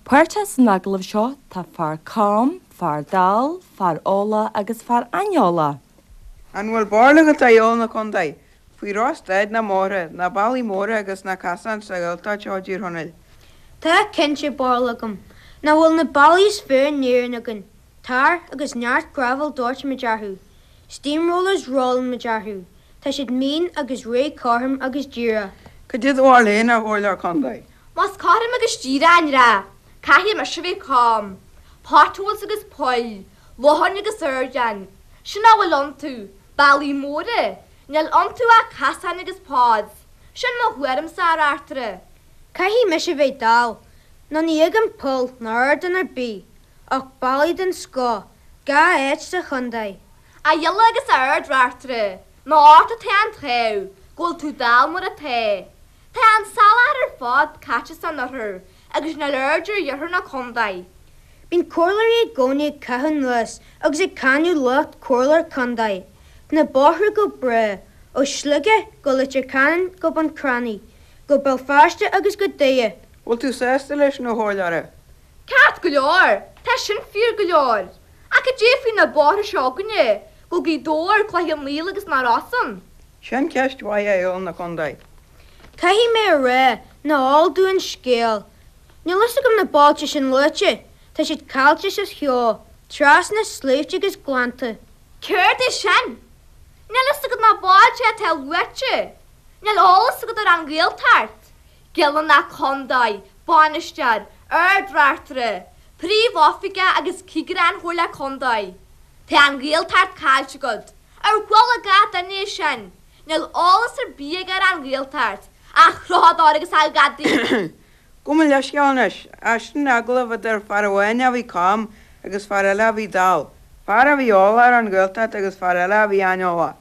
Páirteach san agallamh seo tá fear cam, fear dall, fear eolach agus fear aineolach. An bhfuil barúil agat, a Ghialla na Condae, faoi dhroch-staid na mbóithre, na bealaí móra agus na casáin sa Ghaeltacht seo i dTír Chonaill? Tá cinnte barúil agam. Nach bhfuil na bealaí is fearr in Éirinn againn, tar agus neart gravel doirtimid orthu. Steamrollers rollann muid orthu. Tá siad mín agus réidh cothrom agus díreach. Cad é do bharúil féin, a Chomhairleoir Condae? Más cothrom agus díreach an dreach, caithfidh mise a bheith cam. Potholes agus poill, locháin agus ardáin, sin a bhfuil iontu, bealaí móra, níl iontu ach casáin agus pods, sin mo thuairimse, a Reachtaire. Caithfidh mise a bheith dall, nó ní fheicim poll ná ardán ar bith, ach bealaí den scoth, gach áit sa chontae. A Ghiolla agus a Ard-Reachtaire, nó ort atá an t-ádh go bhfuil tú dall mar atá. Tá an soláthar ar fad caite san oirthear agus níl aird ar iarthar na condae. Bíonn comhairleoirí i gcónaí ag caitheamh anuas agus ag cáineadh lucht comhairleoir contae. Tá na bóithre go breá, ó Shligeach go Leitir Ceanainn go Bun Cranncha, go Béal Feirste agus go Doire. Bhfuil tú sásta leis sin, a chomhairleora? Ceart go leor, tá sin fíor go leor. Ach cad é faoi na bóithre seo againne, go Gaoth Dobhair, Cloich Cheann Fhaola agus na Rosann? Sin ceist mhaith a Ghialla na Condae. Caithfidh mé a rá nach eol domh an scéal. Níl fhios agam na bailte sin luaite, tá siad caillte sa cheo, trasna sléibhte agus gleannta. Céard é sin? Níl fhios agat na bailte atá luaite? Níl eolas agat ar an Ghaeltacht? Giolla na Condae, Bainisteoir, Ard-Reachtaire, Príomh-Oifigeach agus Cigire an Chomhairle Condae. Tá an Ghaeltacht caillte agat. Ar chuala gach duine é sin? Níl eolas ar bith aige ar an Ghaeltacht, a chrochadóir agus a ghadaí! Gabh mo leithscéal anois, sin agallamh idir fear amháin a bhí cam agus fear eile a bhí dall, fear a bhí eolach ar an Ghaeltacht agus fear eile a bhí aineolach.